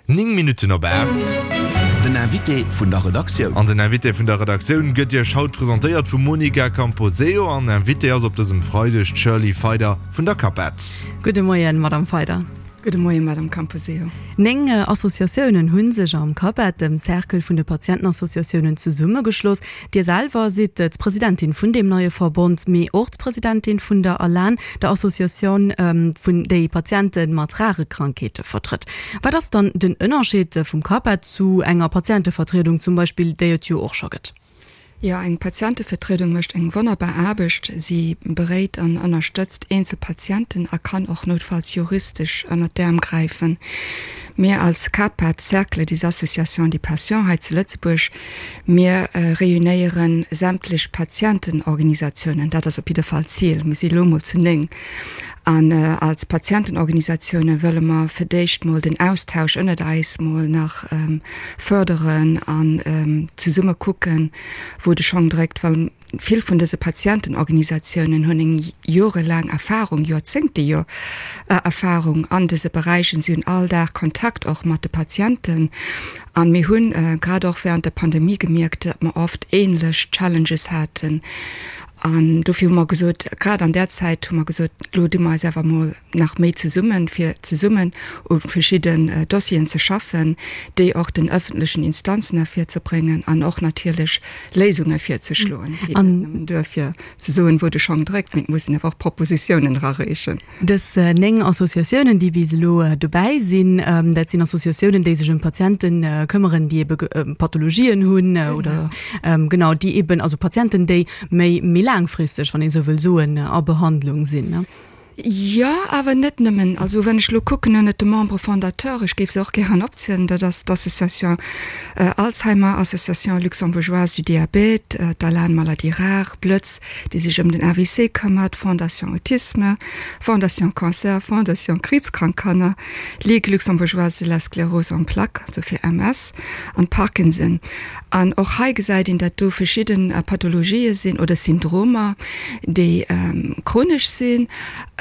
9 Minutten op 8. Den Invité vun der Redaktioun. An den Invité vun der Redaktioun gëtt Iech haut presentéiert vum Monica Camposeo. An Invitée ass op dësem Freideg d'Shirley Feider vun der CAPET. Gudde Moien, Madame Feider. Gudde Moien, Madame Camposeo. 9 Associatiounen hu sech am CAPET, dem Cercle vun de Patientenassociatiounen, zesummegeschloss. Dir selwer sidd d'Presidentin vun deem neie Verbond, mee och d'Presidentin vun der ALAN, der Associatioun vun déi Patiente mat rare Krankheete vertrëtt. Wat ass dann den Ënnerscheed vum CAPA zu enger Patientevertriedung zum Beispill, déi et jo och scho gëtt? Jo, eng Patientevertriedung mécht eng wonnerbar Aarbecht. Si beréit an ënnerstëtzt eenzel Patienten a kann och noutfalls juristesch ënnert d'Äerm gräifen. Mir als CAPA, Cercle des Associations des Patients hei zu Lëtzebuerg, Mir réunéiere sämtlech Patientenorganisatiounen, dat ass op jidde Fall d'Zil. Mir si elo mol zu 9. An als Patientenorganisatioune wëlle mer fir d'éischt mol den Austausch ënnert eis mol nach fërderen an zesumme kucken, wou de Schong dréckt, well Vill vun dëse Patientenorganisatiounen hunn eng jorelaang Erfahrung, Joerzéngte jo Erfahrung an dëse Beräichen. Si hunn all Dag Kontakt och mat de Patienten. An mir hunn grad och während der Pandemie gemierkt, datt mer oft ähnlech Challenges haten. An dofir hu mer gesot, grad an där Zäit hu mer gesot, elo di mer eis awer emol nach méi zesummen, fir zesummen u verschidden Dossieren ze schaffen, déi och den öffentlechen Instanzen ervirzebréngen an och natierlech Léisunge virzeschloen. Et geet net nëmmen duer, fir ze soen, wou de Schong dréckt, mee et muss een awer och Propositiounen erareechen. Dës 9 Associatiounen, déi bis elo dobäi sinn, dat sinn Associatiounen, déi sech ëm Patiente këmmeren, déi ebe Pathologien hunn oder genau, déi eben, also Patienten, déi méi méi laangfristeg, wann ee sou wëll soen, a Behandlung sinn. Jo, awer net nëmmen. Also wann ech elo kucken ënnert de Membres fondateurs, ech géif se och gären opzielen, dat ass d'Association Alzheimer, Association luxembourgeoise du diabète, d'ALAN Maladies rares, Blëtz, déi sech ëm den AVC këmmert, Fondation Autisme, Fondation Cancer, Fondation Kriibskrank Kanner, Ligue luxembourgeoise de la sclérose en plaques, also fir MS, an Parkinson. An och hei gesäit een, datt do verschidde Pathologië sinn oder Syndromer, déi chronesch sinn.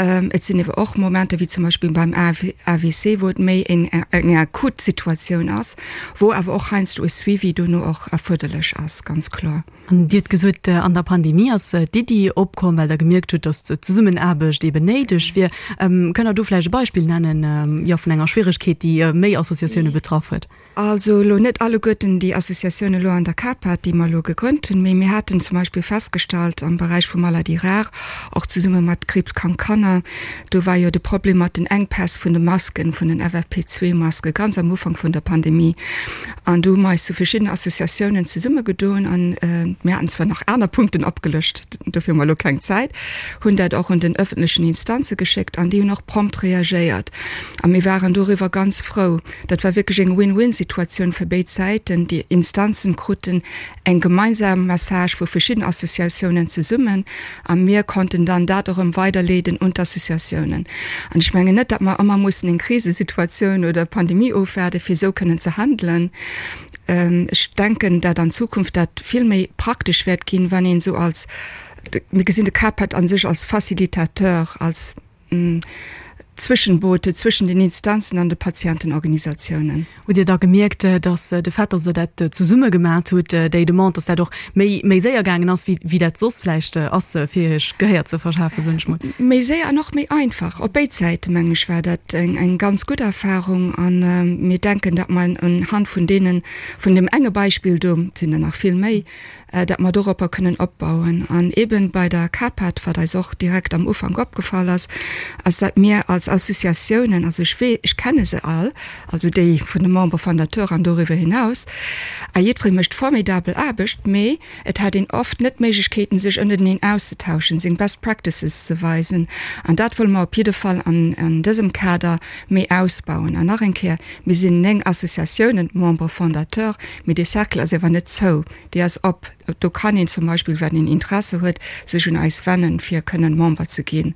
Et sinn ewer och Momenter, wéi zum Beispill beim AVC, wou et méi eng akut Situatioun ass, wou awer och heiansdo e Suivi dono och erfuerderlech ass, ganz kloer. An Dir hutt gesot, an der Pandemie ass d'Iddi opkomm, well Der gemierkt hutt, datt d'Zesummenaarbecht eeben néideg wier. Kënnt Der do vläicht e Beispill nennen, jo, vun enger Schwieregkeet, déi méi Associatioune betraff huet? Also elo net alleguerten déi Associatioun elo an der CAPAD, déi mer elo gegrënnt hunn, mee mir haten zum Beispill festgestallt am Beräich vu Maladies rares, och zesumme mat Kriibskrank Kanner, do war jo de Problem mat den Enkpäss vun de Masken, vun den FFP2-Maske ganz am Ufank vun der Pandemie. An do hu mer eis zu verschiddenen Associatiounen zesummegedoen an mir haten zwar nach aner Punkten opgelëscht, dofir hu mer elo keng Zäit, hunn dat och un den öffentlechen Instanze geschéckt an déi hunn och prompt reagéiert a mir waren doriwwer ganz frou. Dat war wierklech eng Win-win-Situatioun fir béid Säiten. Déi Instanzen kruten eng gemeinsam Message vu verschidden Associatiounen zesummen a mir konnten dann dat erëm weiderleeden un d'Associatiounen. An ech mengen net, datt mer ëmmer mussen eng Krisesituatioun oder Pandemie ofwaarden, fir esou kënnen ze handelen. Ech denken, dat an Zukunft dat vill méi praktesch wäert ginn, wann een esou als, mir gesinn de CAPED a sech als Facilitateur, als Zwëschenbote zwëschen den Instanzen an de Patientenorganisatiounen. Hutt Dir da gemierkt, datt de Fait, datt Der dat zesumme gemat hutt, déi Demande, datt dat och méi méi séier gaangen ass, wéi wéi dat soss vläicht ass, fir Iech Gehéier ze verschafen, soen ech mol? Méi séier an och méi einfach. Op béid Säite, mengen ech, war dat eng eng ganz gutt Erfahrung. A mir denken, datt mer unhand vun deenen, vun deem enge Beispill do, et sinn der nach vill méi, dat mer doropper kënnen opbauen. An eeben bei der CAPAD, wat eis och direkt am Ufank opgefall ass, ass dat mir als Associatiounen, also ech wee, ech kenne se all, also déi vun de Membres fondateurs an doriwwer hinaus, a jiddweree mécht formidabel Aarbecht, mee et hat een oft net d'Méiglechkeeten, sech ënnerteneen auszetauschen, seng Best Practices ze weisen. An dat wëlle mer op jidde Fall an dësem Kader méi ausbauen. An nach eng Kéier, Mir sinn 9 Associatiounen, Membres fondateurs, mee dee Cercle ass ewer net zou. Déi ass op. Do kann een zum Beispill, wann een Interesse huet, sech un eis wennen, fir kënnen Member ze ginn.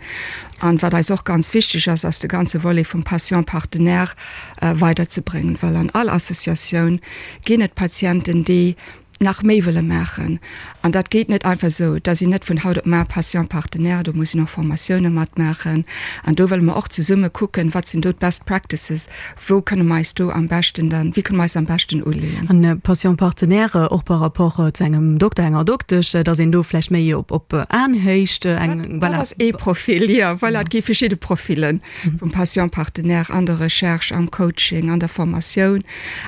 An wat eis och ganz wichteg ass, ass de ganze Volet vum Patient partenaire weiderzebréngen, well an all Associatioun ginn et Patienten, déi. nach méi wëlle maachen. An dat geet net einfach esou. Da sinn net vun haut op mar Patient partenaire, do muss een och Formatioune matmaachen. An do wëlle mer och zesumme kucken, wat sinn do d'Best Practices, wou kënne mer eis do am beschten dann, wéi kënne mer eis am beschten uleeën. An Patient partenaire och par rapport zu engem Dokter, enger Doktesch, datt een do vläicht méi op op Aenhéicht eng, voilà. Dat ass ee Profil, jo, voilà. Et gi verschidde Profillen vum Patient partenaire an der Recherche, am Coaching, an der Formatioun.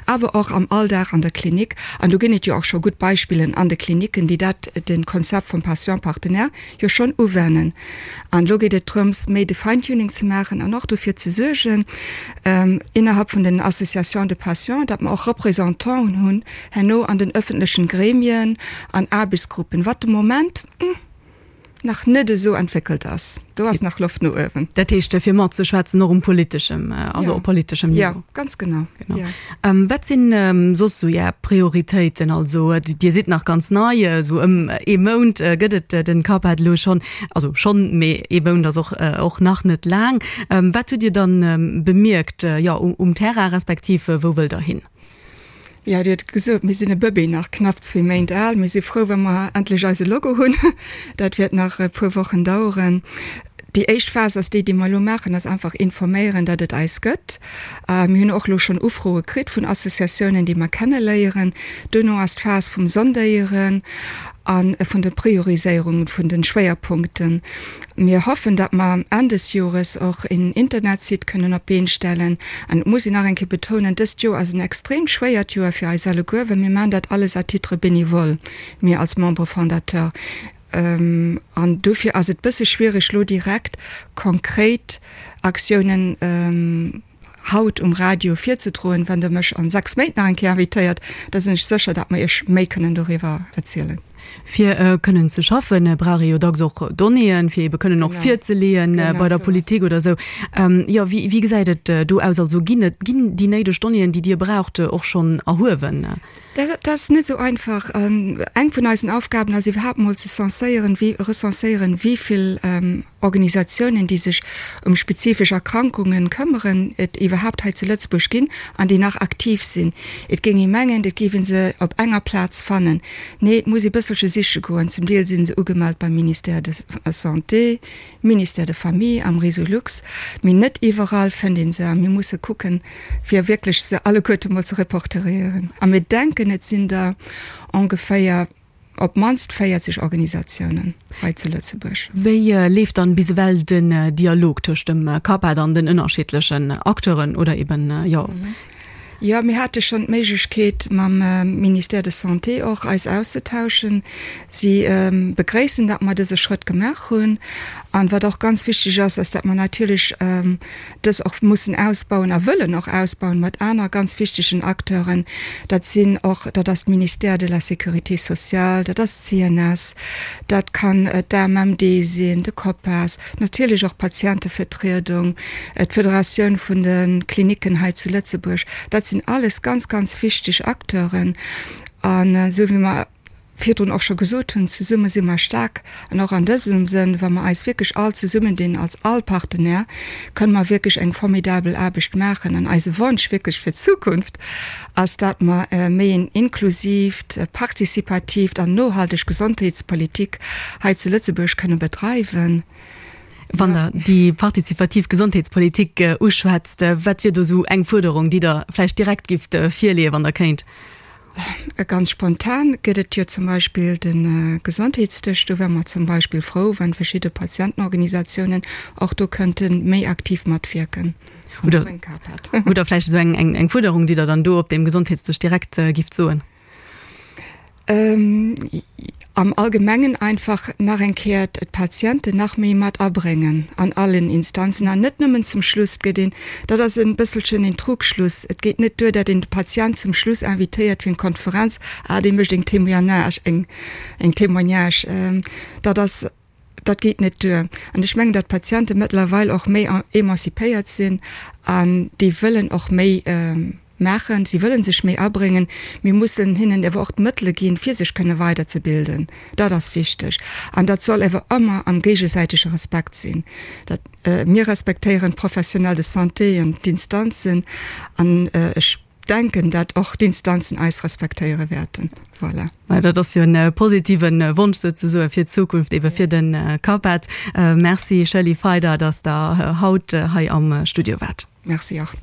Awer och am Alldag an der Klinik. An do ginn et jo och scho gutt Beispillen an de Kliniken, déi dat, de Konzept vum Patient partenaire jo schonn uwennen. An elo geet et drëms, méi de Fine-tuning ze maachen an och dofir ze suergen, innerhalb vun den Associations de patients, datt mer och Représentanten hunn herno an den öffentlechen Gremien an Aarbechtsgruppen, wat de Moment, nach net esou entwéckelt ass. Do ass nach Loft no uewen. Dat heescht, fir matzeschwätzen och um politeschem, also op politeschem Niveau. Jo, ganz genau. Genau. Jo. Wat sinn soss esou Är Prioritéiten? Also Dir sidd nach ganz nei, esou ëm ee Mount gëtt et den CAPAD elo schonn, also schonn, mee ee Mount ass och och nach net laang. Wat hutt Dir dann bemierkt, jo, um Terrain, respektiv wou wëllt Der hin? Jo, Dir hutt et gesot, mir sinn e Bëbee nach, knapp zwee Méint al. Mir si frou, wa mer endlech eise Logo hunn. Dat wäert nach e puer Wochen daueren. Déi éischt Phas ass déi, déi mer elo maachen, ass einfach informéieren, datt et eis gëtt. Mir hunn och elo schonn Ufroe kritt vun Associatiounen, déi mer kenneléieren. Duerno ass d'Phas vum Sondéieren a vun der Prioriséierung vun de Schwéierpunkten. Mir hoffen, datt mer Enn des Jores och een Internetsite kënnen op d'Been stellen. An et muss een nach eng Kéier betounen, dëst Joer ass en extremt schwéiert Joer fir eis alleguer, well mir maachen dat alles à titre bénévole, mir als Membres fondateurs. An dofir ass et bësse schwierig, elo direkt konkret Aktiounen haut um Radio virzedroen. Wann Der mech an 6 Méint nach eng Kéier invitéiert, da sinn ech sécher, datt mer Iech méi kënnen doriwwer erzielen. Fir kënnen ze schaffen, brauch ee jo dacks och Donnéeën, fir ebe kënnen och virzeleeën bei der Politik oder esou. Jo, wéi, wéi gesäit et do aus? Also ginn et, ginn déi néideg Donnéeën, déi Dir braucht, och schonn erhuewen? Dat ass net esou einfach. Eng vun eisen Aufgaben ass iwwerhaapt mol ze censéieren, wéi, recenséieren, wéi vill Organisatiounen, déi sech ëm spezifesch Erkrankungen këmmeren, et iwwerhaapt hei zu Lëtzebuerg ginn an déi nach aktiv sinn. Et géing ee mengen, et géif ee se op enger Plaz fannen. Nee, et muss ee bësselche siche goen. Zum Deel si se ugemellt beim Ministère de Santé, Ministère de Famille, am Resolux, mee net iwwerall fënnt ee se a mir musse kucken, fir wierklech se alleguerte mol ze reporterieren. A mir denken, et sinn der ongeféier op d'mannst 40 Organisatiounen hei zu Lëtzebuerg. Wéi leeft dann bis ewell den Dialog tëscht dem CAPAD an den ënnerschiddlechen Acteuren oder eben, jo. Jo, mir hate schonn d'Méiglechkeet mam Ministère de Santé och eis auszetauschen. Si begréissen, datt mer dëse Schrëtt gemaach hunn. An wat och ganz wichteg ass, ass, datt mer natierlech dës och mussen ausbauen a wëllen och ausbauen mat aner ganz wichtegen Acteuren. Dat sinn och, dat ass d'Ministère de la Sécurité sociale, dat ass d'CNS, dat kann d'AMMD sinn, de COPAS, natierlech och d'Patientevertriedung, d'Federatioun vun de Klinicken hei zu Lëtzebuerg. Dat sinn alles ganz, ganz wichteg Acteuren. An esou wéi mer virdrun och scho gesot hunn, zesumme si mer staark. An och an dësem Sënn, wa mer eis wierklech all zesummendinn als all Partenaire, kënne mer wierklech eng formidabel Aarbecht maachen. An eise Wonsch wierklech fir d'Zukunft ass, dat mer méi en inklusiivt, participatiivt an nohalteg Gesondheetspolitik hei zu Lëtzebuerg kënne bedreiwen. Wann Der déi partizipativ Gesondheetspolitik uschwätzt, wat wier do esou eng Fuerderung, déi Der vläicht direkt gifft virleeën, wann Der kéint? Ganz spontan gëtt et jo zum Beispill de Gesondheetsdësch. Do wäre mer zum Beispill frou, wann verschidde Patientenorganisatiounen och do kënnte méi aktiv matwierken. Oder hutt Der vläicht esou eng Fuerderung, déi Der dann do op deem Gesondheetsdësch direkt gifft soen? Am Allgemengen einfach nach eng Kéier d'Patienten nach méi mat abréngen an allen Instanzen an net nëmmen zum Schluss. Et gëtt een, dat ass e bësselchen een Trugschluss, et geet net duer, datt een de Patient zum Schluss invitéiert fir eng Konferenz, ah dee mécht eng Témoignage, eng eng Témoignage. Dat ass, dat geet net duer. An ech mengen, datt d'Patiente mëttlerweil och méi emancipéiert sinn an déi wëllen och méi, Maachen, si wëllen sech méi abréngen. Mir mussen hinnen ewer och d'Mëttele ginn, fir sech kënne weiderzebilden. Dat ass wichteg. An dat soll ewer ëmmer am géigesäitege Respekt sinn. Dat, mir respektéieren d'Professionnels de santé an d'Instanzen an ech. denken, dat och d'Instanzen eis respektéiere wäerten. Voilà. Mä dat ass jo en positive Wonsch souzesoe fir d'Zukunft, ebe fir de CAPET. Merci Shirley Feider, datt Der haut hei am Studio waart. Merci och.